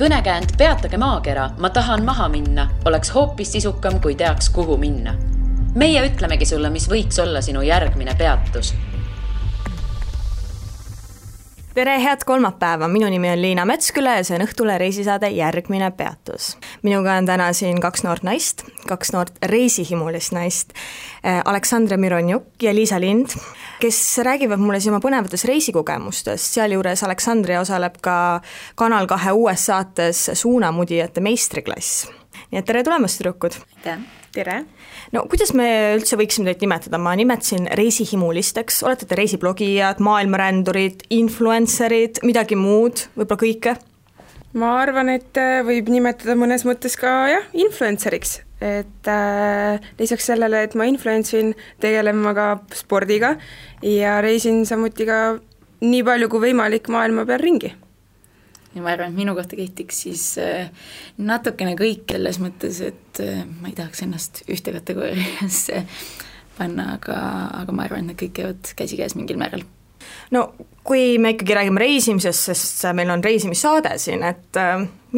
Kõnekäänd Peatage maakera, ma tahan maha minna, oleks hoopis sisukam, kui teaks, kuhu minna. Meie ütlemegi sulle, mis võiks olla sinu järgmine peatus. Tere, head kolmapäeva, minu nimi on Liina Metsküla ja see on Õhtule reisisaade Järgmine peatus. Minuga on täna siin kaks noort naist, kaks noort reisihimulist naist, Aleksandra Mironjuk ja Liisa Lind, kes räägivad mulle siin oma põnevates reisikogemustest. Sealjuures Aleksandria osaleb ka Kanal 2 uues saates Suunamudijate meistriklass. Nii et tere tulemast, tüdrukud! Tere! No kuidas me üldse võiksime teid nimetada? Ma nimetasin reisihimulisteks, olete te reisiblogijad, maailmarändurid, influencerid, midagi muud, võib-olla kõike? Ma arvan, et võib nimetada mõnes mõttes ka influenceriks, et lisaks sellele, et ma influencerin, tegelen ma ka spordiga ja reisin samuti ka nii palju kui võimalik maailma peal ringi. Ja ma arvan, et minu kohta kehtiks siis natukene kõik selles mõttes, et ma ei tahaks ennast ühte kategooriasse panna, aga ma arvan, et kõik käivad käsikäes mingil määral. No kui me ikkagi räägime reisimisest, sest meil on reisimissaade siin, et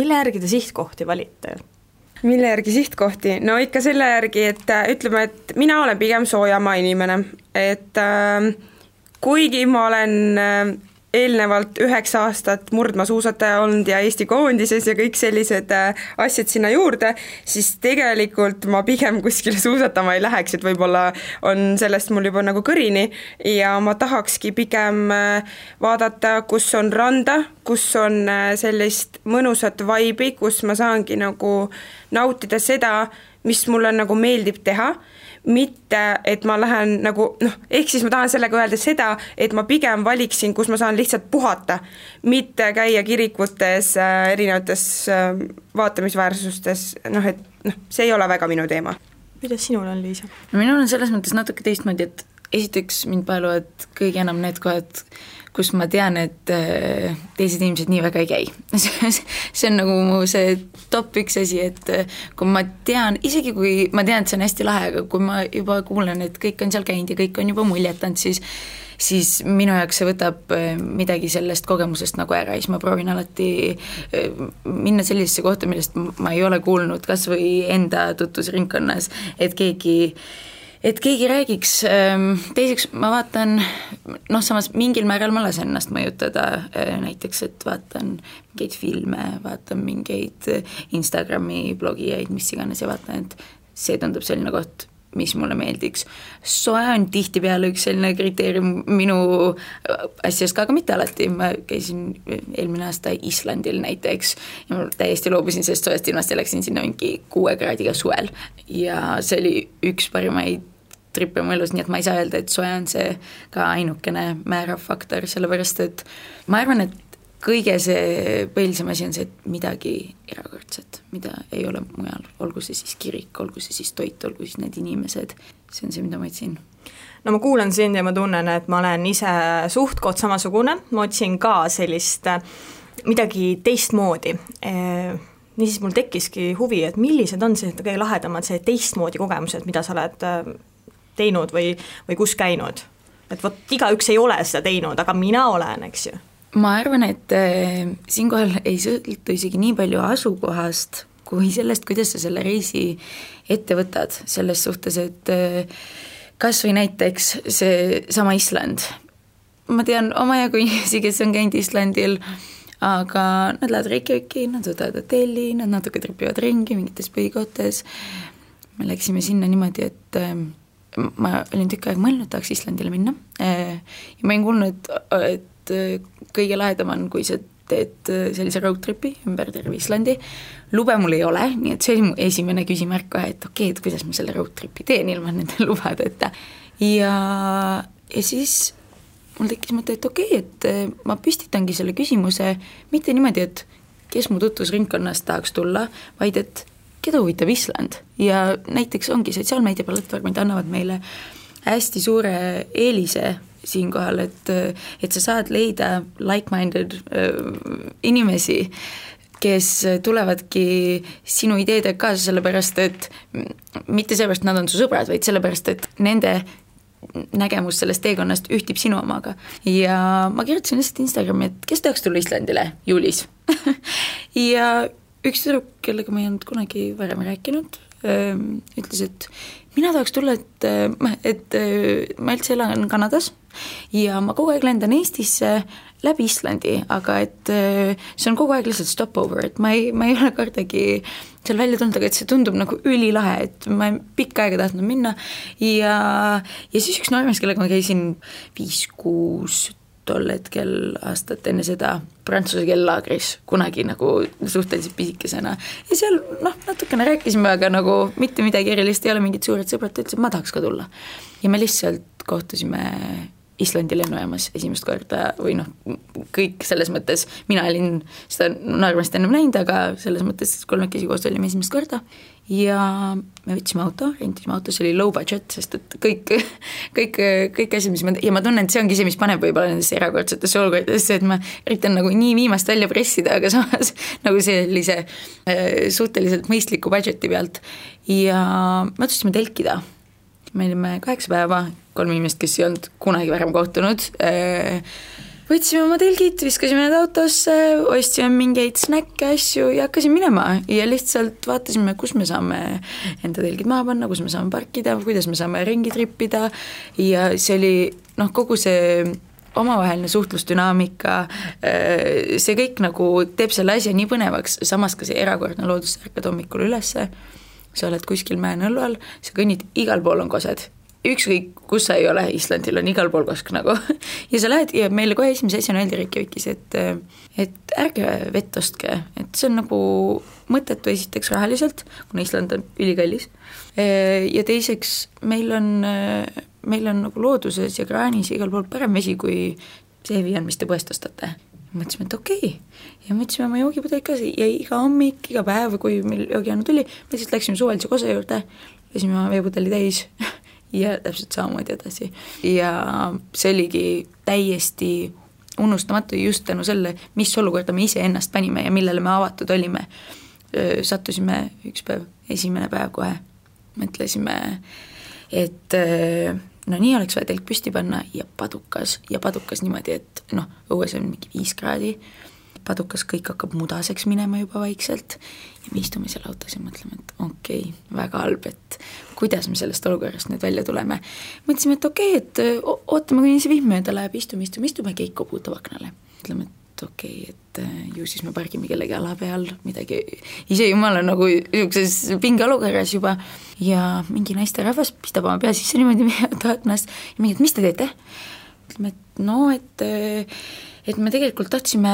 mille järgi te sihtkohti valite? Mille järgi sihtkohti? No ikka selle järgi, et ütleme, et mina olen pigem soojamaa inimene, et kuigi ma olen eelnevalt 9 aastat murdmaasuusataja olnud ja Eesti koondises ja kõik sellised asjad sinna juurde, siis tegelikult ma pigem kuskile suusatama ei läheks, et võib-olla on sellest mul juba nagu kõrini ja ma tahakski pigem vaadata, kus on randa, kus on sellist mõnusat vaibi, kus ma saangi nagu nautida seda, mis mulle nagu meeldib teha, mitte, et ma lähen nagu, ehk siis ma tahan sellega öelda seda, et ma pigem valiksin, kus ma saan lihtsalt puhata, mitte käia kirikutes, erinevates vaatamisväärsustes, see ei ole väga minu teema. Kuidas sinul on, Liisa? Minul on selles mõttes natuke teistmoodi, et esiteks mind paeluvad kõige enam need kohad, kus ma tean, et teised inimesed nii väga ei käi. See on nagu mu see top 1 asi, et kui ma tean, isegi kui ma tean, et see on hästi lahe, aga kui ma juba kuulen, et kõik on seal käinud ja kõik on juba muljetanud, siis minu jaoks see võtab midagi sellest kogemusest nagu ära, siis ma proovin alati minna sellisesse kohta, millest ma ei ole kuulnud, kas või enda tutvusringkonnas, et keegi räägiks. Teiseks ma vaatan, samas mingil määral ma lasen ennast mõjutada, näiteks, et vaatan mingeid filme, vaatan mingeid Instagrami blogijaid, mis iganes ja vaatan, et see tundub selline koht, mis mulle meeldiks. Soe on tihtipeale üks selline kriteerium minu asjast ka, aga mitte alati. Ma käisin eelmine aasta Islandil näiteks ja ma täiesti loobusin sellest soest ilmast ja läksin sinna mingi 6 kraadiga suvel ja see oli üks parimaid trippe mu elus, nii et ma ei saa öelda, et soe on see ka ainukene määrav faktor, sellepärast et ma arvan, et kõige see põhilisem asi on see, et midagi erakordset, mida ei ole mujal, olgu see siis kirik, olgu see siis toit, olgu siis need inimesed, see on see, mida ma otsin. No ma kuulan sind ja ma tunnen, et ma olen ise suhtkond samasugune, ma otsin ka sellist midagi teistmoodi. Niisiis mul tekkiski huvi, et millised on see kõige lahedamad see teistmoodi kogemused, mida sa oled teinud või kus käinud. Et igaüks ei ole seda teinud, aga mina olen, eks ju. Ma arvan, et siinkohal ei sõltu isegi nii palju asukohast kui sellest, kuidas sa selle reisi ette võtad selles suhtes, et kas või näiteks see sama Island. Ma tean omajagu inimesi, kes on käinud Islandil, aga nad lähevad Reykjaviki, nad võtavad hotelli, nad natuke tripivad ringi mingites põhikohtes. Me läksime sinna niimoodi, et ma olin tükk aeg mõelnud, tahaks Islandile minna ja ma olin kuulnud, et kõige lahedam on, kui sa teed sellise roadtripi ümber terve Islandi. Lube mul ei ole, nii et see oli mu esimene küsimärk kohe, et okei, et kuidas ma selle roadtripi teen ilma nende lubadeta. Ja siis mul tekkis mõte, et okei, et ma püstitangi selle küsimuse mitte niimoodi, et kes mu tutvusringkonnast tahaks tulla, vaid et keda huvitab Island ja näiteks ongi sotsiaalmeediaplatvormid annavad meile hästi suure eelise siinkohal, et sa saad leida like-minded inimesi, kes tulevadki sinu ideedega kaasa sellepärast, et mitte sellepärast nad on su sõbrad, vaid sellepärast, et nende nägemus sellest teekonnast ühtib sinu omaga. Ja ma kirjutasin lihtsalt Instagrami, et kes tahaks tulla Islandile juulis ja üks tüdruk, kellega ma ei olnud kunagi varem rääkinud, ütles, et mina tahaks tulla, et ma üldse elan Kanadas ja ma kogu aeg lendan Eestisse läbi Islandi, aga et see on kogu aeg lihtsalt stopover, et ma ei ole kordagi seal välja tulnud, aga et see tundub nagu ülilahe, et ma pikka aega tahtnud minna ja siis üks noormees, kellega ma käisin 5-6 tol hetkel aastat enne seda prantsuse kellaagris kunagi nagu suhteliselt pisikesena ja seal natukene rääkisime, aga nagu mitte midagi erilist, ei ole mingid suured sõbrad, ta ütles, et ma tahaks ka tulla ja me lihtsalt kohtusime Islandi lennujaamas esimest korda või kõik selles mõttes, mina olin seda noormest ennem näinud, aga selles mõttes kolmekesi koos olime esimest korda ja me võtsime auto, rentisime auto, see oli low budget, sest et kõik asjad, mis ja ma tunnen, et see ongi see, mis paneb võib-olla nendesse erakordsetesse olukordadesse, et ma üritan nagu nii viimast välja pressida, aga samas nagu sellise suhteliselt mõistliku budgeti pealt ja me otsustasime telkida. Me olime 8 päeva, 3 inimest, kes ei olnud kunagi varem kohtunud, võtsime oma telgid, viskasime need autosse, ostsime mingeid snäkke, asju ja hakkasime minema ja lihtsalt vaatasime, kus me saame enda telgid maha panna, kus me saame parkida, kuidas me saame ringi trippida ja see oli kogu see omavaheline suhtlusdünaamika, see kõik nagu teeb selle asja nii põnevaks, samas ka see erakordne loodus, ärkad hommikul ülesse, sa oled kuskil mäe-nõllu all, sa kõnnid, igal pool on kosed. Ükskõik, kus sa ei ole, Islandil on igal pool kosk nagu. Ja sa lähed ja meile kohe esimese asjana öeldi Reykjavikis, et ärge vett ostke, et see on nagu mõttetu esiteks rahaliselt, kuna Island on ülikallis. Ja teiseks, meil on nagu looduses ja kraanis igal pool parem vesi, kui see on, mis te poest ostate. Mõtlesime, et okei. Ja mõtlesime oma joogipudel ka ja iga hommik, iga päev, kui meil joogiannu tuli, me siis läksime suvalise kosa juurde, lasime oma veepudeli täis ja täpselt samamoodi edasi. Ja see oligi täiesti unustamatu just tänu selle, mis olukorda me ise ennast panime ja millele me avatud olime. Sattusime üks päev, esimene päev kohe, mõtlesime, et nii oleks vaja telk püsti panna ja padukas niimoodi, et õues on mingi 5 kraadi, padukas kõik hakkab mudaseks minema juba vaikselt ja me istume seal autos ja mõtleme, et okei, väga halb, et kuidas me sellest olukorrast nüüd välja tuleme. Mõtlesime, et okei, et ootame, kuni see vihm mööda läheb, istume keik koputab aknale. Mõtleme, et okei, et ju siis me pargime kellegi ala peal, midagi, ise jumal on nagu niisuguses pinge olukorras juba ja mingi naiste rahvas pistab oma pea sisse niimoodi aknast ja mingi, et mis te teete? Ütleme, et me tegelikult tahtsime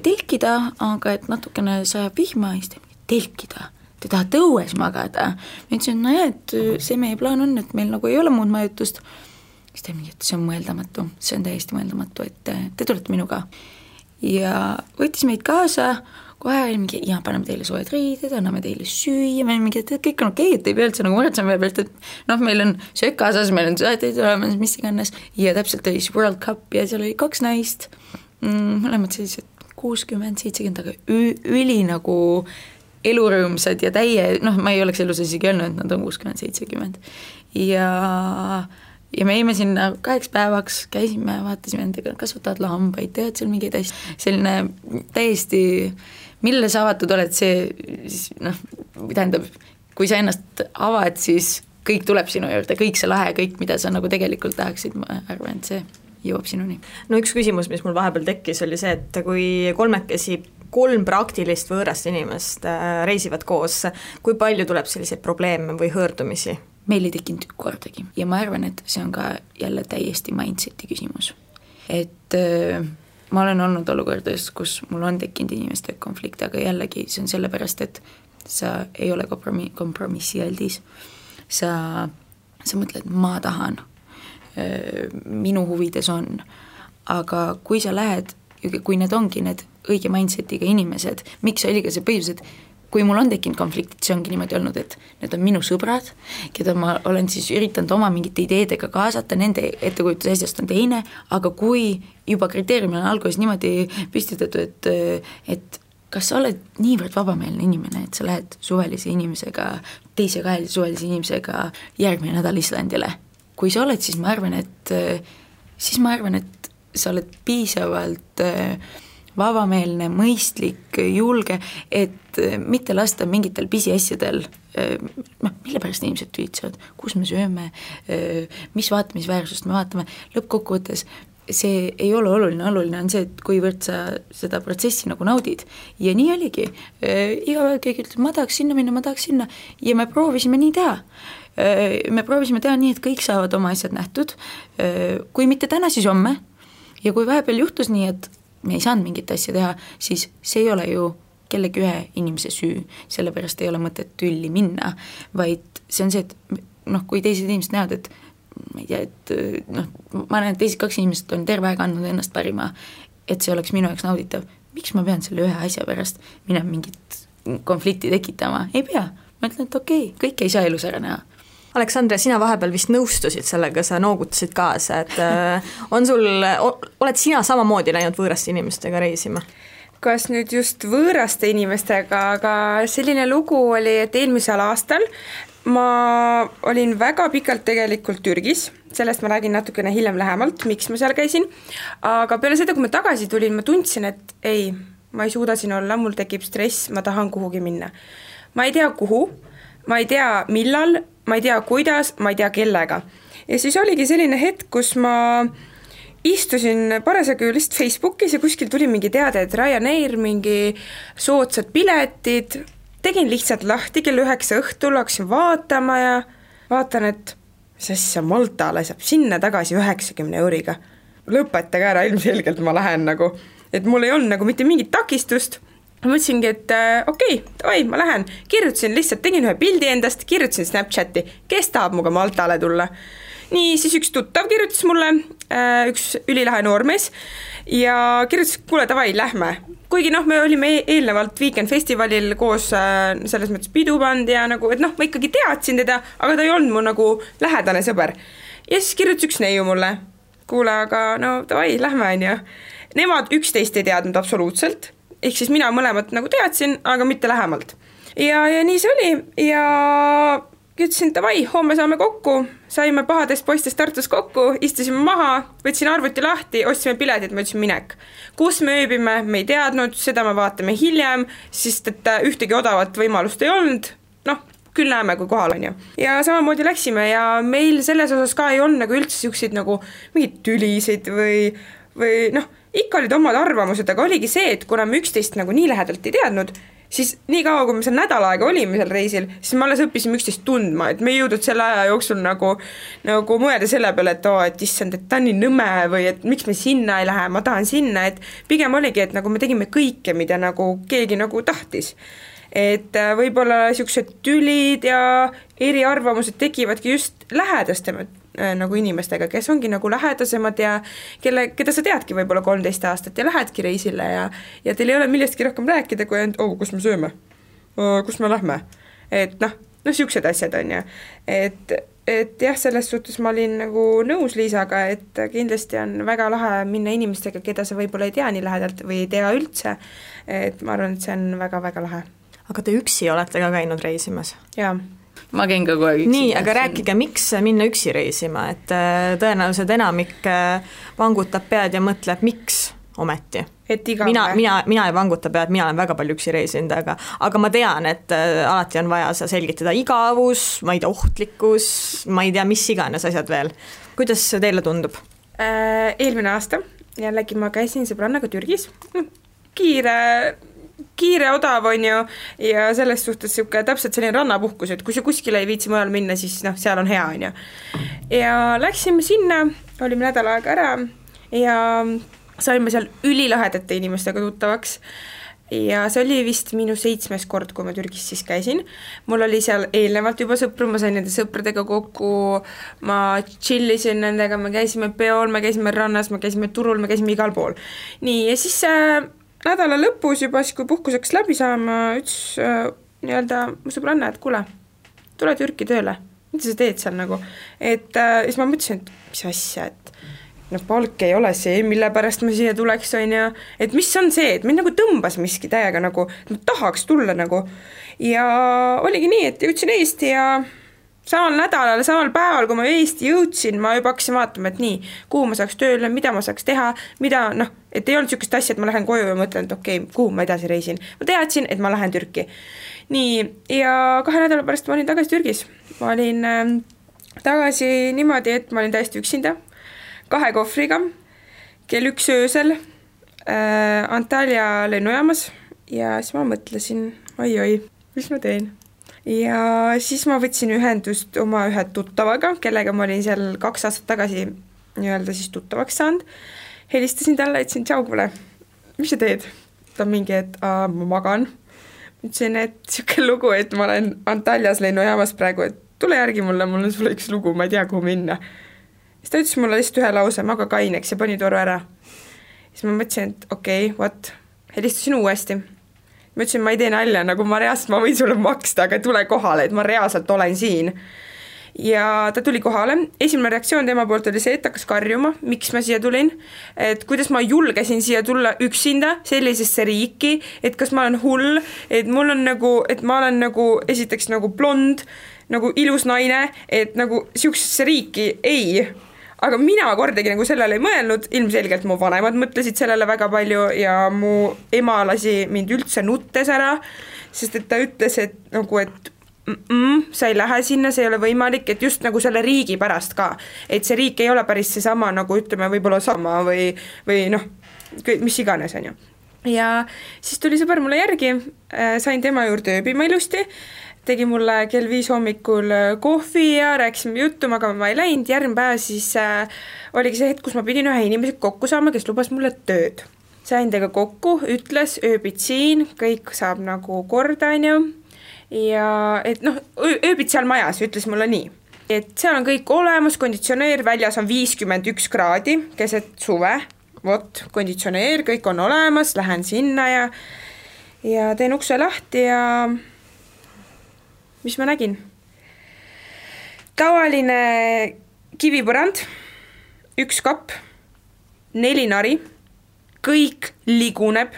telkida, aga et natukene sajab vihma ja siis telkida, te tahate õues magada. Ma ütlesin, et see meie plaan on, et meil nagu ei ole muud majutust. Siis ta mingi, et see on mõeldamatu, see on täiesti mõeldamatu, et te tulete minuga. Ja võttis meid kaasa, kohe oli mingi, ja paneme teile soojad riided, anname teile süüa, meil mingi, et kõik on okei, et ei pea üldse nagu muretsema meie pealt, et meil on söök kaasas, meil on sööteid olemas, mis iganes, ja täpselt oli World Cup ja seal oli 2 naist, mõlemad sellised 60-70, aga üli nagu elurõõmsad ja ma ei oleks elus isegi öelnud, et nad on 60-70 ja me jäime sinna 8 päevaks, käisime, vaatasime nendega, kasvatavad lambaid, tead seal mingeid asju, selline täiesti, mille sa avatud oled, see tähendab, kui sa ennast avad, siis kõik tuleb sinu juurde, kõik see lahe, kõik, mida sa nagu tegelikult tahaksid, ma arvan, et see jõuab sinuni. No üks küsimus, mis mul vahepeal tekkis, oli see, et kui 3 praktilist võõrast inimest reisivad koos, kui palju tuleb selliseid probleeme või hõõrdumisi? Meil ei tekkinud kordagi ja ma arvan, et see on ka jälle täiesti mindseti küsimus. Et ma olen olnud olukordades, kus mul on tekkinud inimeste konflikt, aga jällegi see on sellepärast, et sa ei ole kompromissialdis. Sa mõtled, ma tahan, minu huvides on, aga kui sa lähed, kui need ongi need õige mindsetiga inimesed, miks oli ka see põhjus, et kui mul on tekkinud konfliktid, see ongi niimoodi olnud, et need on minu sõbrad, keda ma olen siis üritanud oma mingite ideedega kaasata, nende ettekujutus asjast on teine, aga kui juba kriteeriumil on alguses niimoodi püstitatud, et kas sa oled niivõrd vabameelne inimene, et sa lähed suvelise inimesega, teise kahelise suvelise inimesega järgmine nädal Islandile. Kui sa oled, siis ma arvan, et sa oled piisavalt vabameelne, mõistlik, julge, et mitte lasta mingitel pisiasjadel, mille pärast inimesed tüütsevad, kus me sööme, mis vaatamisväärsust me vaatame, lõppkokkuvõttes see ei ole oluline on see, et kuivõrd sa seda protsessi nagu naudid. Ja nii oligi. Iga päev keegi ütleb, ma tahaks sinna minna, ja me proovisime nii teha. Me proovisime teha nii, et kõik saavad oma asjad nähtud. Kui mitte täna, siis homme. Ja kui vahepeal juhtus nii, et me ei saanud mingit asja teha, siis see ei ole ju kellegi ühe inimese süü, sellepärast ei ole mõtet tülli minna, vaid see on see, et kui teised inimesed näevad, et ma ei tea, et ma näen, et teised 2 inimesed on terve aeg andnud ennast parima, et see oleks minu jaoks nauditav. Miks ma pean selle ühe asja pärast minema mingit konflikti tekitama? Ei pea. Ma ütlen, et okei, kõik ei saa elus ära näha. Aleksandra, sina vahepeal vist nõustusid sellega, sa noogutasid kaasa, et oled sina samamoodi läinud võõraste inimestega reisima? Kas nüüd just võõraste inimestega, aga selline lugu oli, et eelmisel aastal ma olin väga pikalt tegelikult Türgis, sellest ma räägin natukene hiljem lähemalt, miks ma seal käisin, aga peale seda, kui ma tagasi tulin, ma tundsin, et ei, ma ei suuda siin olla, mul tekib stress, ma tahan kuhugi minna. Ma ei tea kuhu, ma ei tea millal, ma ei tea kuidas, ma ei tea kellega. Ja siis oligi selline hetk, kus ma istusin parasjagu lihtsalt Facebookis ja kuskil tuli mingi teade, et Ryanair, mingi soodsad piletid, tegin lihtsalt lahti kell 9 õhtul, hakkasin vaatama ja vaatan, et mis asja Maltale saab sinna tagasi 90 euriga. Lõpetage ära, ilmselgelt ma lähen nagu, et mul ei olnud nagu mitte mingit takistust. Ma mõtlesingi, et okei, ma lähen. Kirjutasin lihtsalt, tegin ühe pildi endast, kirjutasin Snapchati, kes tahab muga Maltale tulla. Nii, siis üks tuttav kirjutas mulle, üks ülilahe noormees ja kirjutas, kuule, davai, lähme. Kuigi me olime eelnevalt Weekend Festivalil koos selles mõttes pidupand ja nagu, et ma ikkagi teadsin teda, aga ta ei olnud mu nagu lähedane sõber. Ja siis kirjutas üks neiu mulle, kuule, aga davai, lähme on ju. Nemad 11 ei teadnud absoluutselt, ehk siis mina mõlemat nagu teadsin, aga mitte lähemalt. Ja nii see oli ja ütlesin, davai, homme saame kokku, saime pahadest poistest Tartus kokku, istusime maha, võtsin arvuti lahti, ostsime piletid, ma ütlesin minek. Kus me ööbime, me ei teadnud, seda me vaatame hiljem, sest et ühtegi odavat võimalust ei olnud, küll näeme, kui kohal on ju. Ja samamoodi läksime ja meil selles osas ka ei olnud nagu üldse siukseid nagu mingid tülisid või ikka olid omad arvamused, aga oligi see, et kuna me 11 nagu nii lähedalt ei teadnud, siis nii kaua, kui me seal nädal aega olime seal reisil, siis me alles õppisime 11 tundma, et me ei jõudnud selle aja jooksul nagu mõelda selle peale, et issand, et ta on nii nõme või et miks me sinna ei lähe, ma tahan sinna, et pigem oligi, et nagu me tegime kõike, mida nagu keegi nagu tahtis. Et võib-olla siuksed tülid ja eriarvamused tekivadki just lähedastemad nagu inimestega, kes ongi nagu lähedasemad ja keda sa teadki võib-olla 13 aastat ja lähedki reisile ja teil ei ole millestki rohkem rääkida, kui kus me sööme, kus me lähme. Et siuksed asjad on ja. Et jah, selles suhtes ma olin nagu nõus Liisaga, et kindlasti on väga lahe minna inimestega, keda sa võib-olla ei tea nii lähedalt või ei tea üldse. Et ma arvan, et see on väga-väga lahe. Aga te üksi olete ka käinud reisimas? Jaa. Ma käin ka kohe üksi. Nii, aga rääkige, miks minna üksi reisima, et tõenäoliselt enamik vangutab pead ja mõtleb, miks ometi. Et mina ei vanguta pead, mina olen väga palju üksi reisinud, aga ma tean, et alati on vaja selgitada igavus, ma ei tea, ohtlikkus, ma ei tea, mis iganes asjad veel. Kuidas teile tundub? Eelmine aasta jällegi ma käisin sõbrannaga Türgis, kiire odav on ju ja selles suhtes täpselt selline rannapuhkus, et kui sa kuskile ei viitsi mujal minna, siis seal on hea on ju. Ja läksime sinna, olime nädal aega ära ja saime seal ülilahedate inimestega tuttavaks ja see oli vist minu 7. kord, kui ma Türgis siis käisin. Mul oli seal eelnevalt juba sõpru, ma sain nende sõpradega kokku, ma chillisin nendega, me käisime peol, me käisime rannas, me käisime turul, me käisime igal pool. Nii, ja siis nädala lõpus juba, kui puhkuseks läbi saama, ütles mu sõbranna, et kuule, tule Türki tööle, mida sa teed seal nagu. Et siis ma mõtlesin, et mis asja, et palk ei ole see, mille pärast ma siia tuleks on ja et mis on see, et mind nagu tõmbas miski täiega nagu, et ma tahaks tulla nagu. Ja oligi nii, et jõudsin Eesti ja samal nädalal, samal päeval, kui ma Eesti jõudsin, ma juba hakkasin vaatama, et nii, kuhu ma saaks tööle, mida ma saaks teha, mida et ei olnud niisugust asja, et ma lähen koju ja mõtlen, et okei, kuhu ma edasi reisin. Ma teadsin, et ma lähen Türki. Nii, ja 2 nädala pärast ma olin tagasi Türgis. Ma olin tagasi niimoodi, et ma olin täiesti üksinda, 2 kohvriga, kell 1 öösel Antalya lennujaamas ja siis ma mõtlesin, oi, mis ma teen? Ja siis ma võtsin ühendust oma ühe tuttavaga, kellega ma olin seal 2 aastat tagasi nii-öelda siis tuttavaks saanud. Helistasin talle, ütlesin, tšau, kuule, mis sa teed? Ta mingi, et ma magan. Ütlesin, et siuke lugu, et ma olen Antalyas lennujaamas praegu, et tule järgi mulle, mul on sulle üks lugu, ma ei tea, kuhu minna. Siis ta ütles mulle lihtsalt ühe lause, maga kaineks ja pani toru ära. Siis ma mõtlesin, et okei, helistasin uuesti. Ma ütlesin, ma ei tee nalja, nagu ma reaalselt, ma võin sulle maksta, aga tule kohale, et ma reaalselt olen siin. Ja ta tuli kohale. Esimene reaktsioon tema poolt oli see, et hakkas karjuma, miks ma siia tulin, et kuidas ma julgesin siia tulla üksinda sellisesse riiki, et kas ma olen hull, et mul on nagu, et ma olen nagu esiteks nagu blond, nagu ilus naine, et nagu siuksesse riiki ei. Aga mina kordagi nagu sellele ei mõelnud, ilmselgelt mu vanemad mõtlesid sellele väga palju ja mu ema lasi mind üldse nuttes ära, sest et ta ütles, et nagu, et sa ei lähe sinna, see ei ole võimalik, et just nagu selle riigi pärast ka, et see riik ei ole päris see sama, nagu ütleme võib-olla sama või mis iganes on ju. Ja siis tuli sõber mulle järgi, sain tema juurde ööbima ilusti, tegi mulle kell 5 hommikul kohvi ja rääkisime juttu, aga ma ei läinud. Järgmine päev siis oligi see hetk, kus ma pidin ühe inimesega kokku saama, kes lubas mulle tööd. Sain tega kokku, ütles, ööbid siin, kõik saab nagu korda, on ju. Ja et ööbid seal majas, ütles mulle nii. Et seal on kõik olemas, konditsioneer, väljas on 51 kraadi, keset suve, konditsioneer, kõik on olemas, lähen sinna ja teen ukse lahti ja mis ma nägin? Tavaline kivipõrand, 1 kapp, 4 nari, kõik liguneb,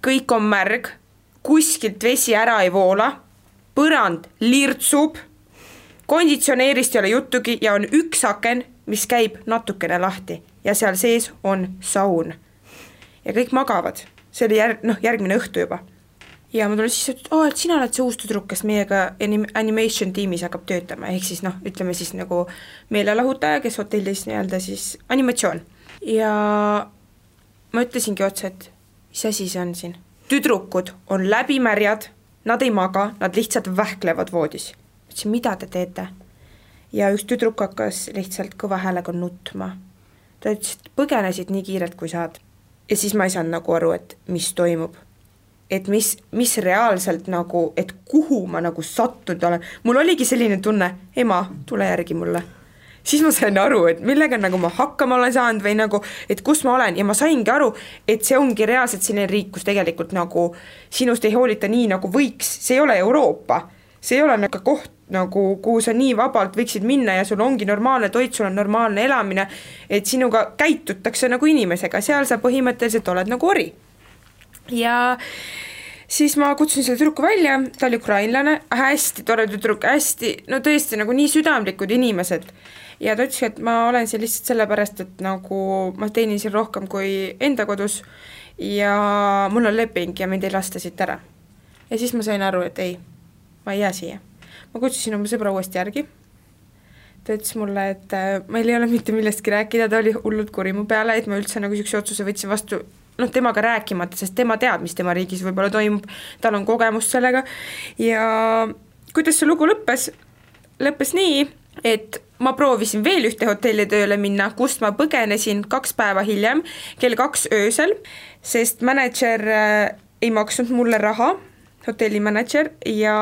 kõik on märg, kuskilt vesi ära ei voola, põrand lirtsub, konditsioneerist ei ole juttugi ja on 1 aken, mis käib natukene lahti ja seal sees on saun. Ja kõik magavad, see oli järgmine õhtu juba. Ja ma tulin siis, et sina oled see uus tüdruk, kes meiega animation tiimis hakkab töötama, ehk siis ütleme siis nagu meelelahutaja, kes hotellis nii-öelda siis animatsioon. Ja ma ütlesingi otsa, et mis asi see on siin? Tüdrukud on läbimärjad, nad ei maga, nad lihtsalt vähklevad voodis. Ütlesin, mida te teete? Ja üks tüdruk hakkas lihtsalt kõva häälega nutma. Ta ütles, et põgenesid nii kiirelt kui saad. Ja siis ma ei saanud nagu aru, et mis toimub. Et mis reaalselt nagu, et kuhu ma nagu sattunud olen. Mul oligi selline tunne, ema, tule järgi mulle. Siis ma sain aru, et millega nagu ma hakkama olen saanud või nagu, et kus ma olen. Ja ma saingi aru, et see ongi reaalselt selline riik, kus tegelikult nagu sinust ei hoolita nii nagu võiks. See ei ole Euroopa. See ei ole nagu koht, nagu, kuhu sa nii vabalt võiksid minna ja sul ongi normaalne toit, sul on normaalne elamine, et sinuga käitutakse nagu inimesega. Seal sa põhimõtteliselt oled nagu ori. Ja siis ma kutsusin selle tüdruku välja, ta oli ukrainlane, hästi tore tüdruk, hästi, tõesti nagu nii südamlikud inimesed. Ja ta ütles, et ma olen siin lihtsalt sellepärast, et nagu ma teenin siin rohkem kui enda kodus ja mul on leping ja mind ei lasta siit ära. Ja siis ma sain aru, et ei, ma ei jää siia. Ma kutsusin oma sõbra uuesti järgi. Ta ütles mulle, et meil ei ole mitte millestki rääkida, ta oli hullult kuri mu peale, et ma üldse nagu siukse otsuse võtsin vastu temaga rääkimata, sest tema teab, mis tema riigis võib-olla toimub, tal on kogemust sellega. Ja kuidas see lugu lõppes? Lõppes nii, et ma proovisin veel ühte hotelli tööle minna, kust ma põgenesin 2 päeva hiljem, kell 2 öösel, sest manager ei maksnud mulle raha, hotellimanager, ja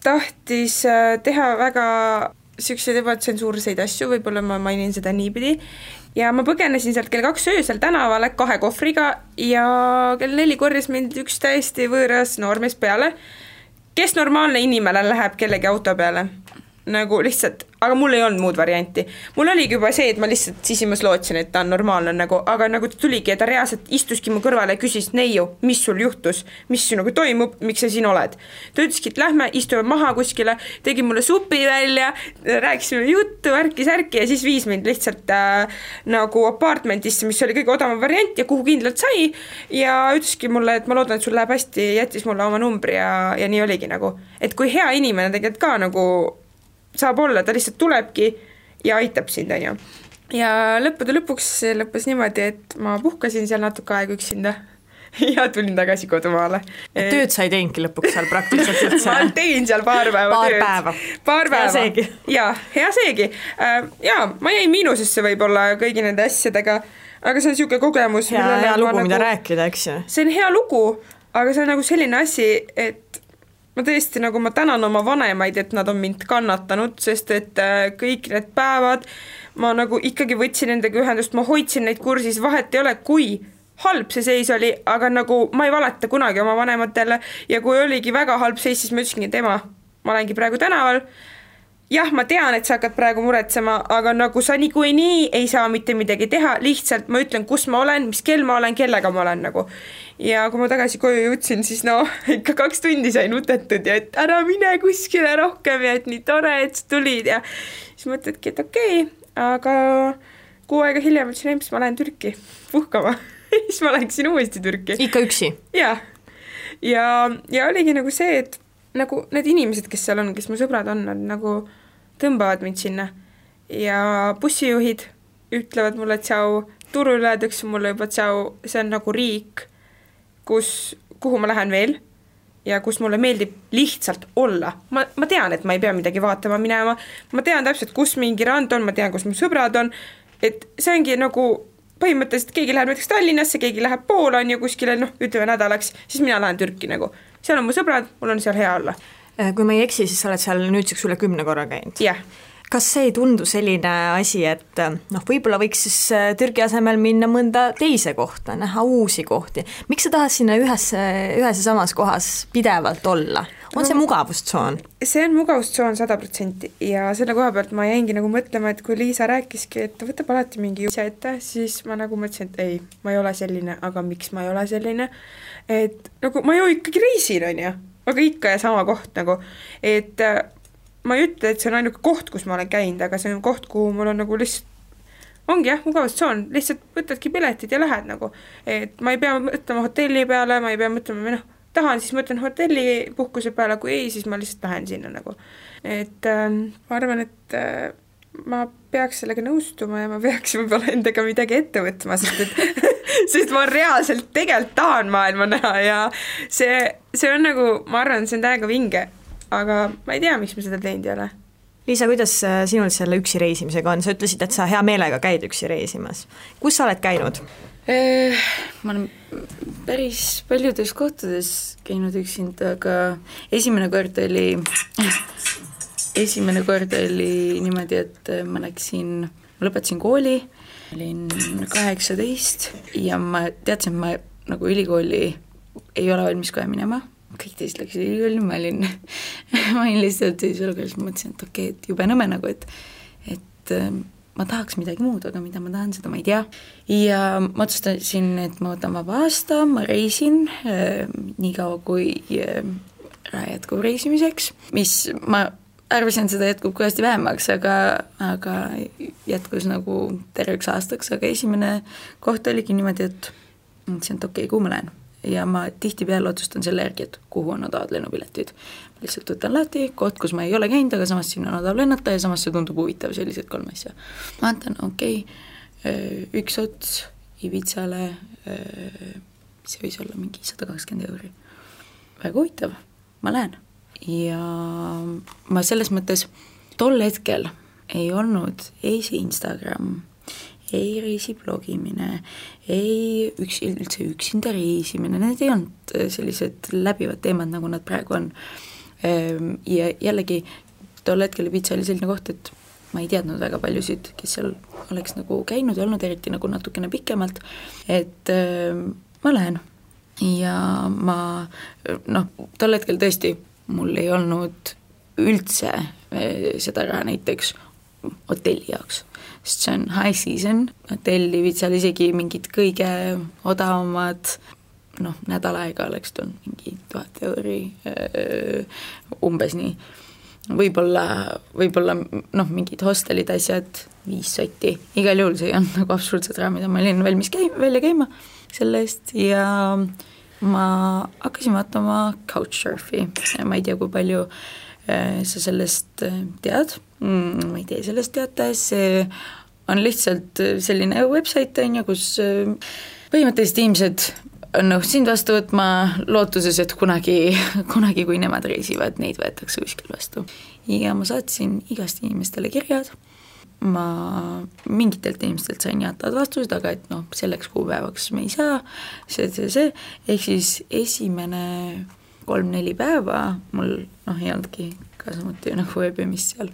tahtis teha väga siukseid ebatsensuurseid asju, võib-olla ma mainin seda niipidi. Ja ma põgenesin sealt kell 2 öösel tänavale 2 kohvriga ja kell 4 korjas mind üks täiesti võõras noormees peale. Kes normaalne inimene läheb kellegi auto peale? nagu lihtsalt, aga mul ei olnud muud varianti. Mul oligi juba see, et ma lihtsalt sisimas lootsin, et ta on normaalne nagu, aga nagu ta tuligi ja ta reaalselt istuski mu kõrvale ja küsis, Neiu, mis sul juhtus, mis nagu toimub, miks sa siin oled. Ta ütleski, et lähme, istume maha kuskile, tegi mulle supi välja, rääkisime juttu, värki-särki ja siis viis mind lihtsalt nagu apartmentisse, mis oli kõige odavam variant ja kuhu kindlalt sai ja ütleski mulle, et ma loodan, et sul läheb hästi, jättis mulle oma numbri ja nii oligi nagu, et kui hea inimene tegelikult ka nagu saab olla, ta lihtsalt tulebki ja aitab sind, on ju. Ja lõppude lõpuks lõppes niimoodi, et ma puhkasin seal natuke aega üksinda ja tulin tagasi kodumaale. Tööd sa ei teinudki lõpuks seal praktiliselt üldse? Ma tegin seal paar päeva tööd. Paar päeva. Hea seegi. Jaa, hea seegi. Jaa, ma jäin miinusesse võib-olla kõigi nende asjadega, aga see on niisugune kogemus. Hea lugu, mida rääkida, eks ju? See on hea lugu, aga see on nagu selline asi, et ma tõesti nagu ma tänan oma vanemaid, et nad on mind kannatanud, sest et kõik need päevad ma nagu ikkagi võtsin nendega ühendust, ma hoidsin neid kursis, vahet ei ole, kui halb see seis oli, aga nagu ma ei valeta kunagi oma vanematele ja kui oligi väga halb seis, siis ma ütlesingi, et ema, ma olengi praegu tänaval, jah, ma tean, et sa hakkad praegu muretsema, aga nagu sa nii ei saa mitte midagi teha, lihtsalt ma ütlen, kus ma olen, mis kell ma olen, kellega ma olen nagu. Ja kui ma tagasi koju jõudsin, siis ikka 2 tundi sain utetud ja et ära mine kuskile rohkem ja et nii tore, et sa tulid ja siis mõtledki, et okei, aga 6 aega hiljem ütlesin, et ma lähen Türki puhkama. Siis ma läksin uuesti Türki. Ikka üksi? Ja oligi nagu see, et nagu need inimesed, kes seal on, kes mu sõbrad on, nad nagu tõmbavad mind sinna ja bussijuhid ütlevad mulle tšau, turul öeldakse mulle juba tšau, see on nagu riik, kuhu ma lähen veel ja kus mulle meeldib lihtsalt olla. Ma tean, et ma ei pea midagi vaatama minema, ma tean täpselt, kus mingi rand on, ma tean, kus mu sõbrad on, et see ongi nagu põhimõtteliselt keegi läheb näiteks Tallinnasse, keegi läheb Poola on ju kuskile, ütleme nädalaks, siis mina lähen Türki nagu. Seal on mu sõbrad, mul on seal hea olla. Kui ma ei eksi, siis sa oled seal nüüdseks üle 10 korra käinud. Jah. Kas see ei tundu selline asi, et võib-olla võiks siis Türgi asemel minna mõnda teise kohta, näha uusi kohti? Miks sa tahad sinna ühes ja samas kohas pidevalt olla? On see mugavustsoon? See on mugavustsoon 100% ja selle koha pealt ma jäingi nagu mõtlema, et kui Liisa rääkiski, et ta võtab alati mingi asja ette, siis ma nagu mõtlesin, et ei, ma ei ole selline, aga miks ma ei ole selline? Et nagu ma ju ikkagi reisin, on ju, aga ikka ja sama koht nagu, et ma ei ütle, et see on ainuke koht, kus ma olen käinud, aga see on koht, kuhu mul on nagu lihtsalt, ongi jah, mugavustsoon, lihtsalt võtadki piletid ja lähed nagu, et ma ei pea mõtlema hotelli peale, ma ei pea mõtlema, tahan, siis mõtlen hotelli puhkuse peale, kui ei, siis ma lihtsalt lähen sinna nagu. Et ma arvan, et ma peaks sellega nõustuma ja ma peaks võib-olla endaga midagi ette võtma, sest ma reaalselt tegelikult tahan maailma näha ja see on nagu, ma arvan, see on täiega vinge, aga ma ei tea, miks ma seda teinud ei ole. Liisa, kuidas sinul selle üksi reisimisega on? Sa ütlesid, et sa hea meelega käid üksi reisimas. Kus sa oled käinud? Ma olen päris paljudes kohtades käinud üksinda, aga esimene kord oli niimoodi, et ma lõpetasin kooli, olin 18 ja ma teadsin, et ma nagu ülikooli ei ole valmis kohe minema. Kõik teised läksid ülikooli, ma olin lihtsalt siis olukorras, mõtlesin, et okei, et jube nõme nagu, et ma tahaks midagi muud, aga mida ma tahan, seda ma ei tea. Ja ma otsustasin, et ma võtan vaba aasta, ma reisin nii kaua kui jätkub reisimiseks, mis ma arvasin, seda jätkub kõvasti vähemaks, aga jätkus nagu terveks aastaks, aga esimene koht oligi niimoodi, et mõtlesin, et okei, kuhu ma lähen. Ja ma tihtipeale otsustan selle järgi, et kuhu on odavad lennupiletid. Lihtsalt võtan lahti, koht, kus ma ei ole käinud, aga samas siin on odav lennata ja samas see tundub huvitav, sellised 3 asja. Ma antan, üks ots Ibitsale, see võis olla mingi 120 €. Väga huvitav, ma lähen. Ja ma selles mõttes tol hetkel ei olnud ei see Instagram, ei reisiblogimine, ei üldse üksinda reisimine, need ei olnud sellised läbivad teemad, nagu nad praegu on. Ja jällegi tol hetkel Ibiza oli selline koht, et ma ei teadnud väga paljusid, kes seal oleks nagu käinud ja olnud, eriti nagu natukene pikemalt, et ma lähen. Ja tol hetkel tõesti mul ei olnud üldse seda raha näiteks hotelli jaoks, sest see on high season, hotelli viid seal isegi mingid kõige odavamad, nädal aega oleks tulnud mingi 1000 euri, umbes nii. Võib-olla mingid hostelid asjad, 5 sotti, igal juhul see on nagu absoluutselt raha, mida ma olin valmis välja käima selle eest ja ma hakkasin vaatama Couchsurfi, ma ei tea, kui palju sa sellest tead, ma ei tea sellest teada, see on lihtsalt selline website, kus põhimõtteliselt inimesed on sind vastu võtma lootuses, et kunagi, kui nemad reisivad, neid võetakse kuskil vastu. Ja ma saatsin igast inimestele kirjad, ma mingitelt inimestelt sain jaatavad vastused, aga et selleks kuupäevaks me ei saa, see, ehk siis esimene 3-4 päeva mul ei olnudki ka samuti ööbimist seal.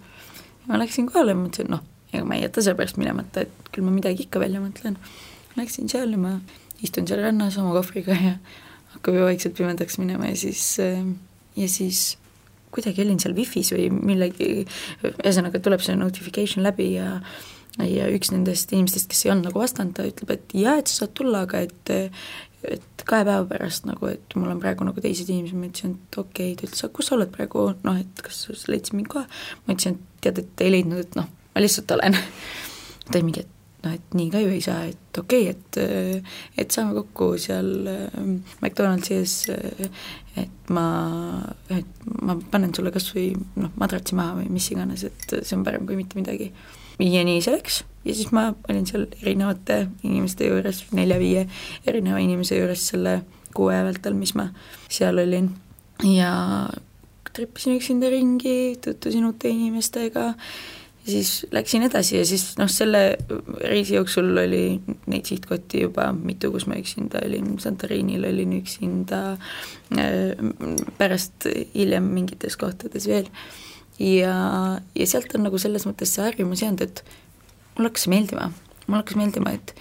Ma läksin kohale ja mõtlesin, ega ma ei jäta selle pärast minemata, et küll ma midagi ikka välja mõtlen. Läksin seal ja ma istun seal rannas oma kohvriga ja hakkab ju vaikselt pimedaks minema ja siis kuidagi olin seal Wi-Fi's või millegi, ühesõnaga tuleb see notification läbi ja üks nendest inimestest, kes ei olnud nagu vastanud, ta ütleb, et et sa saad tulla, aga et 2 päeva pärast et mul on praegu nagu teised inimesed, ma ütlesin, et okei, ta ütles, kus sa oled praegu, et kas sa leidsid mind kohe, ma ütlesin, et tead, et ei leidnud, et ma lihtsalt olen ta ei mingi, et nii ka ju ei saa, et okei, et saame kokku seal McDonaldsis, et ma panen sulle kas või madratsi maha või mis iganes, et see on parem kui mitte midagi. Ja nii see läks ja siis ma olin seal erinevate inimeste juures, 4-5 erineva inimese juures selle 6 vältel, mis ma seal olin ja trippisin üksinda ringi, tutvusin uute inimestega ja siis läksin edasi ja siis selle reisi jooksul oli neid sihtkotti juba mitu, kus ma üksinda olin, Santorinil olin üksinda, pärast hiljem mingites kohtades veel ja sealt on nagu selles mõttes see harjumus jäänud, et mul hakkas meeldima, et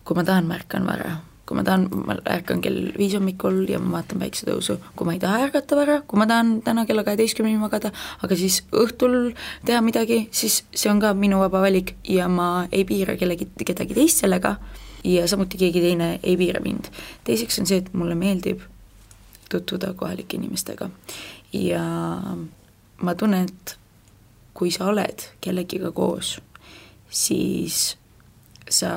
kui ma tahan, ma ärkan vara. Kui ma tahan, ma ärkan kell 5 hommikul ja ma vaatan päiksetõusu. Kui ma ei taha ärgata vara, kui ma tahan täna kella 12 magada, aga siis õhtul teha midagi, siis see on ka minu vaba valik ja ma ei piira kedagi teist sellega ja samuti keegi teine ei piira mind. Teiseks on see, et mulle meeldib tutvuda kohalike inimestega ja ma tunnen, et kui sa oled kellegiga koos, siis sa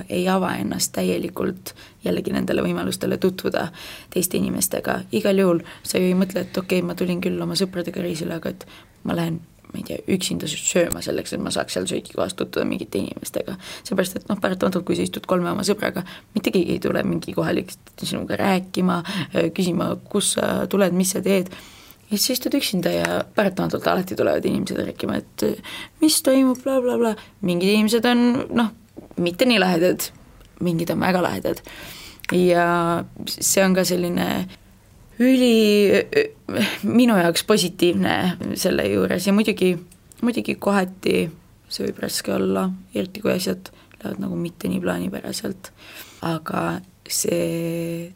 ei ava ennast täielikult jällegi nendele võimalustele tutvuda teiste inimestega. Igal juhul sa ju ei mõtle, et okei, ma tulin küll oma sõpradega reisile, aga et ma lähen, ma ei tea, üksinda sööma selleks, et ma saaks seal söögikohast tutvuda mingite inimestega. Seepärast, et paratamatult, kui sa istud 3 oma sõbraga, mitte keegi ei tule mingi kohalik sinuga rääkima, küsima, kus sa tuled, mis sa teed. Ja siis istud üksinda ja paratamatult alati tulevad inimesed rääkima, et mis toimub, bla bla bla. Mingid inimesed on, mitte nii lahedad, mingid on väga lahedad. Ja see on ka selline minu jaoks positiivne selle juures ja muidugi kohati see võib raske olla, eriti kui asjad lähevad nagu mitte nii plaanipäraselt, aga see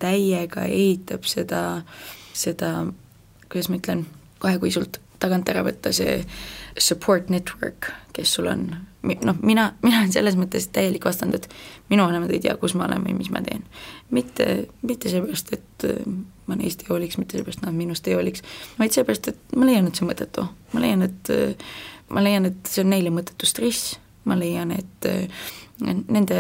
täiega ehitab seda, kuidas ma ütlen, kohe kui sult tagant ära võtta see support network, kes sul on, mina olen selles mõttes täielik vastand, et minu vanemad ei tea, kus ma olen või mis ma teen. Mitte seepärast, et ma neist ei hooliks, mitte seepärast nad minust ei hooliks, vaid seepärast, et ma leian, et see on mõttetu. Ma leian, et see on neile mõttetu stress, ma leian, et nende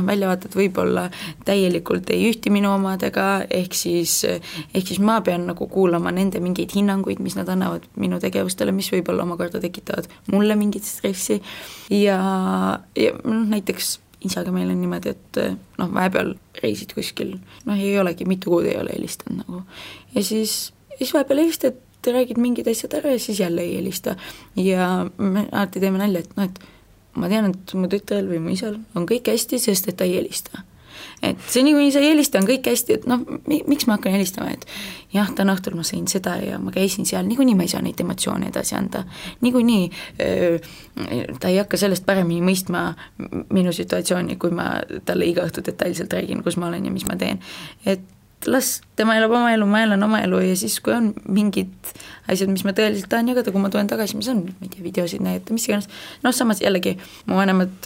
väljavaated võib-olla täielikult ei ühti minu omadega, ehk siis ma pean nagu kuulama nende mingeid hinnanguid, mis nad annavad minu tegevustele, mis võib-olla omakorda tekitavad mulle mingit stressi ja näiteks isaga meil on niimoodi, et vahepeal reisid kuskil, ei olegi, mitu kuud ei ole helistanud nagu. Ja siis vahepeal helistad, räägid mingid asjad ära ja siis jälle ei helista ja me alati teeme nalja, et ma tean, et mu tütrel või mu isal on kõik hästi, sest et ta ei helista. Et see nii, kui sa ei helista, on kõik hästi, et miks ma hakkan helistama, et jah, täna õhtul ma sain seda ja ma käisin seal, niikuinii ma ei saa neid emotsioone edasi anda. Niikuinii ta ei hakka sellest paremini mõistma minu situatsiooni, kui ma talle iga õhtu detailselt räägin, kus ma olen ja mis ma teen. Et las tema elab oma elu, ma elan oma elu ja siis, kui on mingid asjad, mis ma tõeliselt tahan jagada, kui ma tulen tagasi, ma saan, ma ei tea, videosid näidata, mis iganes. Samas jällegi, mu vanemad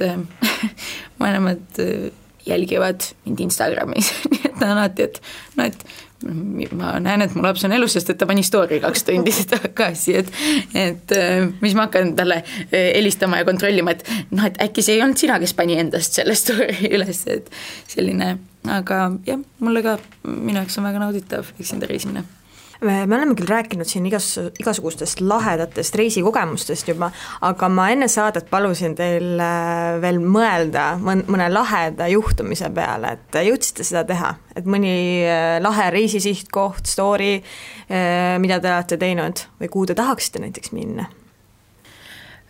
jälgivad mind Instagramis, nii et ta on alati, et ma näen, et mu laps on elus, sest et ta pani story 2 tundi tagasi, et mis ma hakkan talle helistama ja kontrollima, et et äkki see ei olnud sina, kes pani endast selle story üles, et selline, aga jah, mulle ka minu jaoks on väga nauditav üksinda reisimine. Me oleme küll rääkinud siin igasugustest lahedatest reisikogemustest juba, aga ma enne saadet palusin teil veel mõelda mõne laheda juhtumise peale, et jõudsite seda teha, et mõni lahe reisisihtkoht, story, mida te olete teinud või kuhu te tahaksite näiteks minna?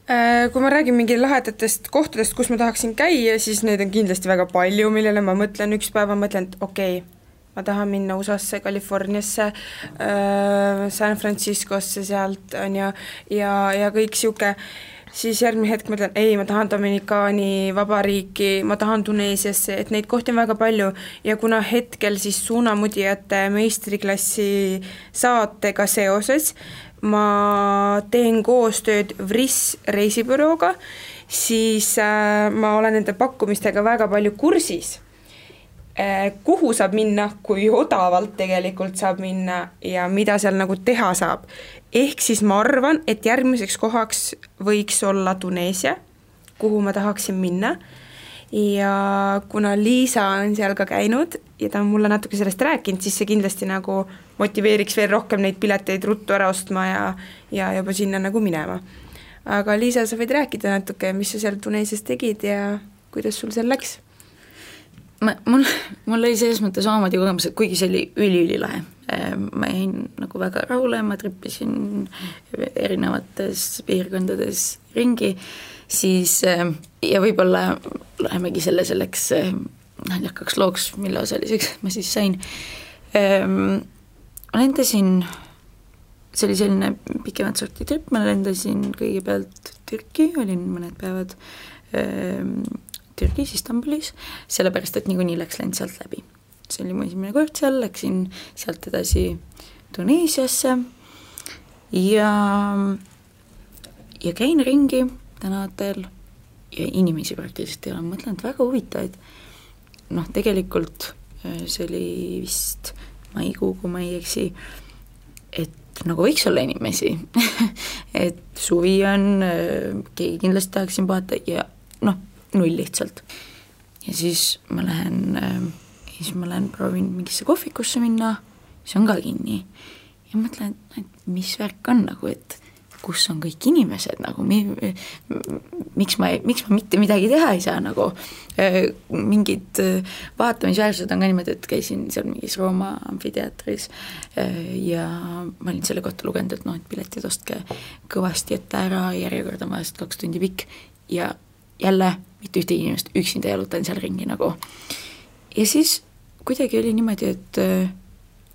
Kui ma räägin mingi lahedatest kohtadest, kus ma tahaksin käia, siis neid on kindlasti väga palju, millele ma mõtlen üks päev, ma mõtlen, et okei, ma tahan minna USA-sse, Californiasse, San Franciscosse sealt on ja kõik siuke, siis järgmine hetk mõtlen, ei, ma tahan Dominikaani vabariiki, ma tahan Tuneesiasse, et neid kohti on väga palju ja kuna hetkel siis suunamudijate meistriklassi saatega seoses ma teen koostööd VRIS reisibürooga, siis ma olen nende pakkumistega väga palju kursis, kuhu saab minna, kui odavalt tegelikult saab minna ja mida seal nagu teha saab. Ehk siis ma arvan, et järgmiseks kohaks võiks olla Tuneesia, kuhu ma tahaksin minna ja kuna Liisa on seal ka käinud ja ta on mulle natuke sellest rääkinud, siis see kindlasti nagu motiveeriks veel rohkem neid pileteid ruttu ära ostma ja juba sinna nagu minema. Aga Liisa, sa võid rääkida natuke, mis sa seal Tuneesias tegid ja kuidas sul seal läks? Mul oli selles mõttes omamoodi kogemus, et kuigi see oli ülilahe. Ma jäin nagu väga rahule, ma trippisin erinevates piirkondades ringi, siis ja võib-olla lähemegi selleks naljakaks looks, mille osaliseks ma siis sain. Ma lendasin, see oli selline pikemat sorti trip, ma lendasin kõigepealt Türki, olin mõned päevad Türgis, Istanbulis, sellepärast, et niikuinii läks lend sealt läbi. See oli mu esimene kord seal, läksin sealt edasi Tuneesiasse ja käin ringi tänavatel ja inimesi praktiliselt ei ole, mõtlen, et väga huvitavaid. Tegelikult see oli vist maikuu, kui ma ei eksi, et nagu võiks olla inimesi, et suvi on, keegi kindlasti tahaksin puhata ja null lihtsalt. Ja siis ma lähen proovin mingisse kohvikusse minna, see on ka kinni. Ja mõtlen, et mis värk on nagu, et kus on kõik inimesed nagu, miks ma mitte midagi teha ei saa nagu. Mingid vaatamisväärsused on ka niimoodi, et käisin seal mingis Rooma amfiteatris ja ma olin selle kohta lugenud, et et piletid ostke kõvasti ette ära, järjekord on vahest 2 tundi pikk ja jälle mitte ühte inimest üksinda jalutan seal ringi nagu. Ja siis kuidagi oli niimoodi, et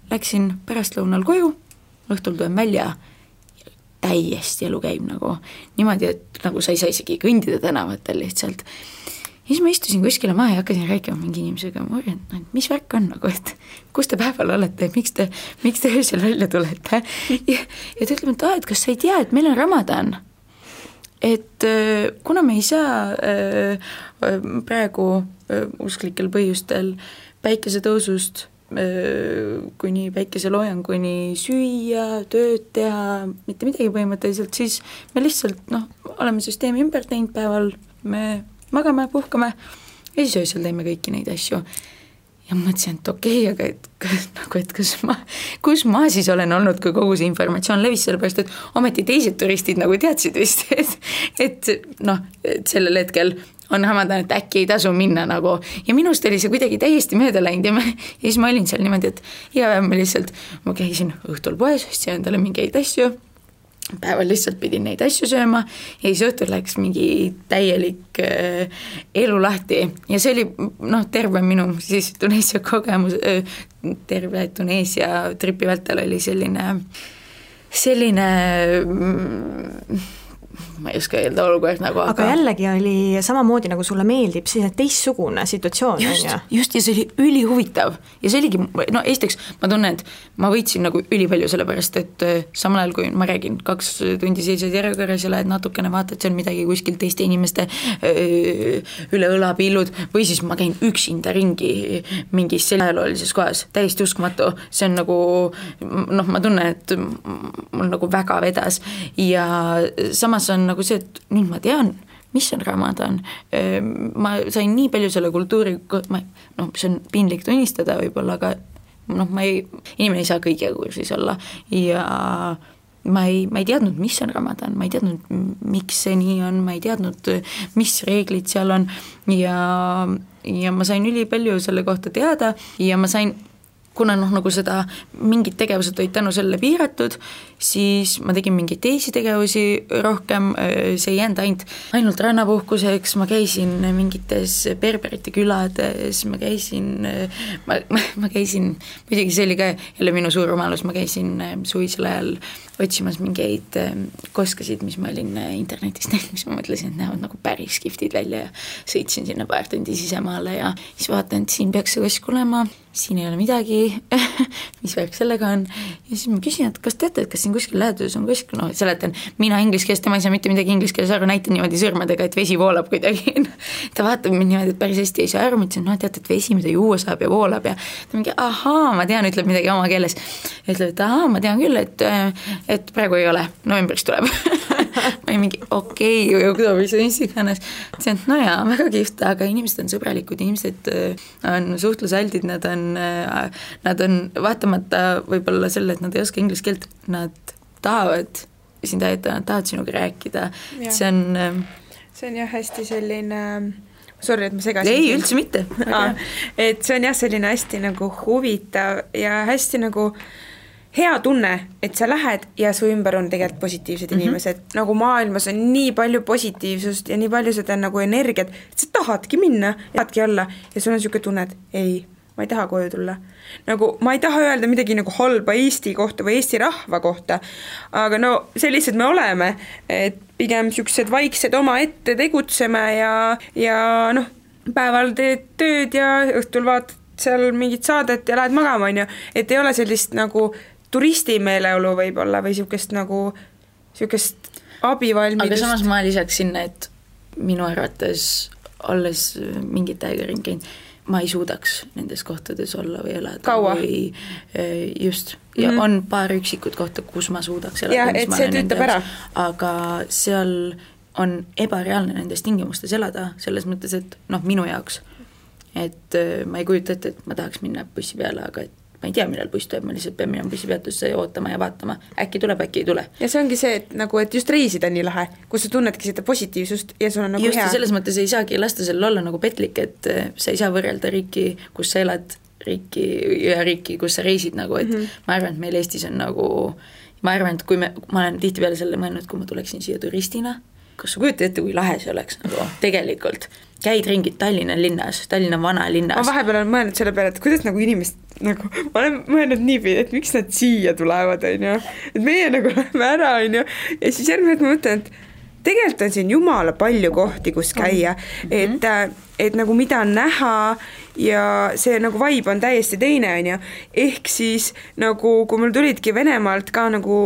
läksin pärastlõunal koju, õhtul tulen välja ja täiesti elu käib nagu niimoodi, et nagu sa ei saa isegi kõndida tänavatel lihtsalt. Ja siis ma istusin kuskile maha ja hakkasin rääkima mingi inimesega, ma uurisin, et mis värk on nagu, et kus te päeval olete, miks te öösel välja tulete ja ta ütleb, et kas sa ei tea, et meil on Ramadan, et kuna me ei saa praegu usklikel põhjustel päikesetõusust kuni päikeseloojanguni süüa, tööd teha, mitte midagi põhimõtteliselt, siis me lihtsalt oleme süsteemi ümber teinud päeval, me magame, puhkame ja siis öösel teeme kõiki neid asju. Ja mõtlesin, et okei, aga kus ma siis olen olnud, kui kogu see informatsioon levis, sellepärast, et ometi teised turistid nagu teadsid vist, et sellel hetkel on Ramadan, et äkki ei tasu minna nagu. Ja minust oli see kuidagi täiesti mööda läinud ja siis ma olin seal niimoodi, et iga päev ma käisin õhtul poes, ostsin endale mingeid asju, päeval lihtsalt pidin neid asju sööma ja siis õhtul läks mingi täielik elu lahti ja see oli terve minu siis Tuneesia kogemus, terve Tuneesia tripi vältel oli selline ma ei oska öelda olukord nagu, aga jällegi oli samamoodi, nagu sulle meeldib, siis teistsugune situatsioon. Just, ja see oli ülihuvitav ja see oligi, no esiteks ma tunnen, et ma võitsin nagu ülipalju sellepärast, et samal ajal, kui ma räägin 2 tundi seisad järjekorras ja lähed natukene vaatad seal midagi kuskil teiste inimeste üle õlapillud või siis ma käin üksinda ringi mingis ajaloolises kohas, täiesti uskumatu, see on nagu, noh, ma tunnen, et mul nagu väga vedas ja samas on nagu see, et nüüd ma tean, mis on Ramadan, ma sain nii palju selle kultuuri, noh, see on piinlik tunnistada võib-olla, aga noh, inimene ei saa kõige kursis olla ja ma ei teadnud, mis on Ramadan, ma ei teadnud, miks see nii on, ma ei teadnud, mis reeglid seal on ja ma sain ülipalju selle kohta teada ja ma sain, kuna noh, nagu seda mingid tegevused olid tänu selle piiratud, siis ma tegin mingeid teisi tegevusi rohkem, see ei jäänud ainult rannapuhkuseks, ma käisin mingites berberite külades, ma käisin, muidugi see oli ka jälle minu suur rumalus, ma käisin suvisel ajal otsimas mingeid koskasid, mis ma olin internetist näinud, mis ma mõtlesin, et näevad nagu päris kihvtid välja ja sõitsin sinna paar tundi sisemaale ja siis vaatan, et siin peaks see kosk olema, siin ei ole midagi, mis värk sellega on ja siis ma küsin, et kas teate, et kas siin kuskil läheduses on kuskil, no seletan, mina inglise keeles, tema ei saa mitte midagi inglise keeles aru, näitan niimoodi sõrmedega, et vesi voolab kuidagi. Ta vaatab mind niimoodi, et päris hästi ei saa aru, ma ütlesin, no teate, et vesi, mida juua saab ja voolab ja ta mingi, ahaa, ma tean, ütleb midagi oma keeles. Ütleb, et ahaa, ma tean küll, et praegu ei ole, novembris tuleb. Ma ei mingi, okei, oktooberis on iganes. See on, no jaa, väga kihvt, aga inimesed on sõbralikud, inimesed on suhtlusaldid, nad on vaatamata võib-olla selle, et nad ei oska inglise keelt, nad tahavad sind aidata, nad tahavad sinuga rääkida. See on jah hästi selline, sorry, et ma segasin. Ei, üldse mitte. Et see on jah selline hästi nagu huvitav ja hästi nagu hea tunne, et sa lähed ja su ümber on tegelikult positiivsed inimesed. Nagu maailmas on nii palju positiivsust ja nii palju seda nagu energiat, et sa tahadki minna, tahadki olla ja sul on siuke tunne, et ei, ma ei taha koju tulla. Nagu ma ei taha öelda midagi nagu halba Eesti kohta või Eesti rahva kohta, aga no sellised me oleme, et pigem siuksed vaiksed oma ette tegutseme ja noh, päeval teed tööd ja õhtul vaatad seal mingit saadet ja lähed magama, on ju, et ei ole sellist nagu turisti meeleolu võib-olla või siukest nagu siukest abivalmidust. Aga samas ma lisaks sinna, et minu arvates olles mingit aega ringi, ma ei suudaks nendes kohtades olla või elada. Kaua? Või, just. Ja on paar üksikut kohta, kus ma suudaks elada. Ja, et see tüütab ära. Aga seal on ebareaalne nendes tingimustes elada, selles mõttes, et noh, minu jaoks. Et ma ei kujuta ette, et ma tahaks minna bussi peale, aga et ma ei tea, millal buss tuleb, ma lihtsalt pean minema bussipeatusse ootama ja vaatama, äkki tuleb, äkki ei tule. Ja see ongi see, et nagu, et just reisida nii lahe, kus sa tunnedki seda positiivsust ja sul on nagu just hea. Just selles mõttes ei saagi lasta seal olla nagu petlik, et sa ei saa võrrelda riiki, kus sa elad, riiki, kus sa reisid nagu, et ma arvan, et meil Eestis on nagu, ma arvan, et kui ma olen tihtipeale selle mõelnud, kui ma tuleksin siia turistina, kas sa kujutad ette, kui lahe see oleks nagu tegelikult, käid ringid Tallinna linnas, Tallinna vana linnas. Ma vahepeal olen mõelnud selle peale, et kuidas nagu inimest, nagu, ma olen mõelnud niipidi, et miks nad siia tulevad, on ju, et meie nagu läheme ära, on ju, ja siis järgmine, et ma mõtlen, et tegelikult on siin jumala palju kohti, kus käia, et nagu mida on näha ja see nagu vibe on täiesti teine, on ju, ehk siis nagu, kui mul tulidki Venemaalt ka nagu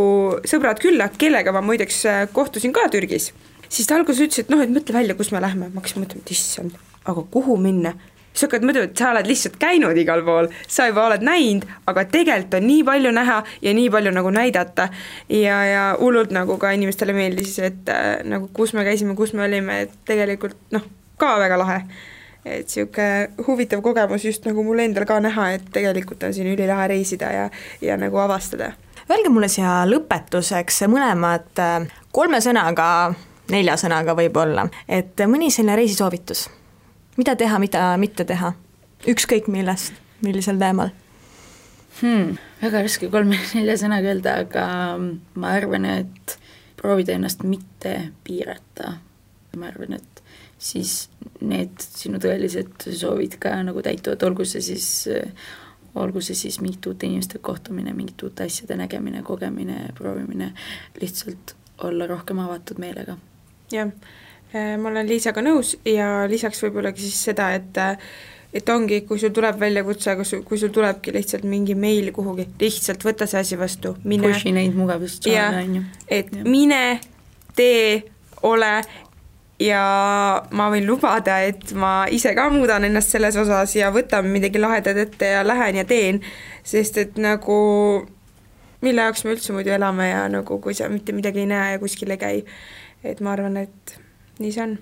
sõbrad külla, kellega ma muideks kohtusin ka Türgis, siis ta alguses ütles, et noh, et mõtle välja, kus me lähme. Ma hakkasin mõtlema, et issand, aga kuhu minna? Sa hakkad mõtlema, et sa oled lihtsalt käinud igal pool, sa juba oled näinud, aga tegelikult on nii palju näha ja nii palju nagu näidata ja hullult nagu ka inimestele meeldis, et nagu kus me käisime, kus me olime, et tegelikult noh, ka väga lahe. Et siuke huvitav kogemus just nagu mul endal ka näha, et tegelikult on siin ülilahe reisida ja nagu avastada. Öelge mulle siia lõpetuseks mõlemad 3 sõnaga, 4 sõnaga võib-olla, et mõni selline reisisoovitus, mida teha, mida mitte teha, ükskõik millest, millisel teemal? Väga raske 3-4 sõnaga öelda, aga ma arvan, et proovida ennast mitte piirata. Ma arvan, et siis need sinu tõelised soovid ka nagu täituvad, olgu see siis mingit uute inimeste kohtumine, mingit uute asjade nägemine, kogemine, proovimine, lihtsalt olla rohkem avatud meelega. Jah, ma olen Liisaga nõus ja lisaks võib-ollagi siis seda, et ongi, kui sul tuleb väljakutse, kui sul tulebki lihtsalt mingi meil kuhugi, lihtsalt võta see asi vastu, mine. Pushi neid mugavustsaane, on ju. Et mine, tee, ole ja ma võin lubada, et ma ise ka muudan ennast selles osas ja võtan midagi lahedat ette ja lähen ja teen, sest et nagu mille jaoks me üldse muidu elame ja nagu kui sa mitte midagi ei näe ja kuskil ei käi, et ma arvan, et nii see on.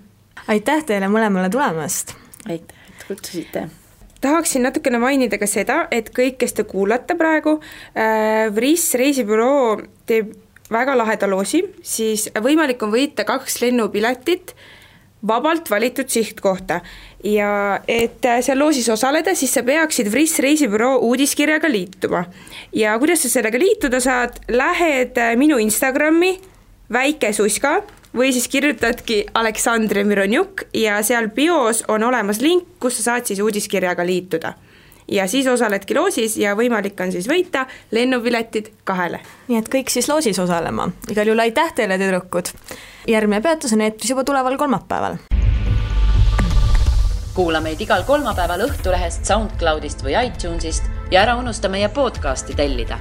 Aitäh teile mõlemale tulemast! Aitäh, et kutsusite! Tahaksin natukene mainida ka seda, et kõik, kes te kuulate praegu, Vris reisibüroo teeb väga laheda loosi, siis võimalik on võita 2 lennupiletit vabalt valitud sihtkohta ja et seal loosis osaleda, siis sa peaksid Vris reisibüroo uudiskirjaga liituma. Ja kuidas sa sellega liituda saad, lähed minu Instagrami väike suska või siis kirjutadki Aleksandr Mironjuk ja seal bios on olemas link, kus sa saad siis uudiskirjaga liituda. Ja siis osaledki loosis ja võimalik on siis võita lennupiletid 2. Nii et kõik siis loosis osalema. Igal juhul aitäh teile, tüdrukud. Järgmine peatus on eetris juba tuleval kolmapäeval. Kuula meid igal kolmapäeval Õhtulehest, SoundCloudist või iTunesist ja ära unusta meie podcasti tellida.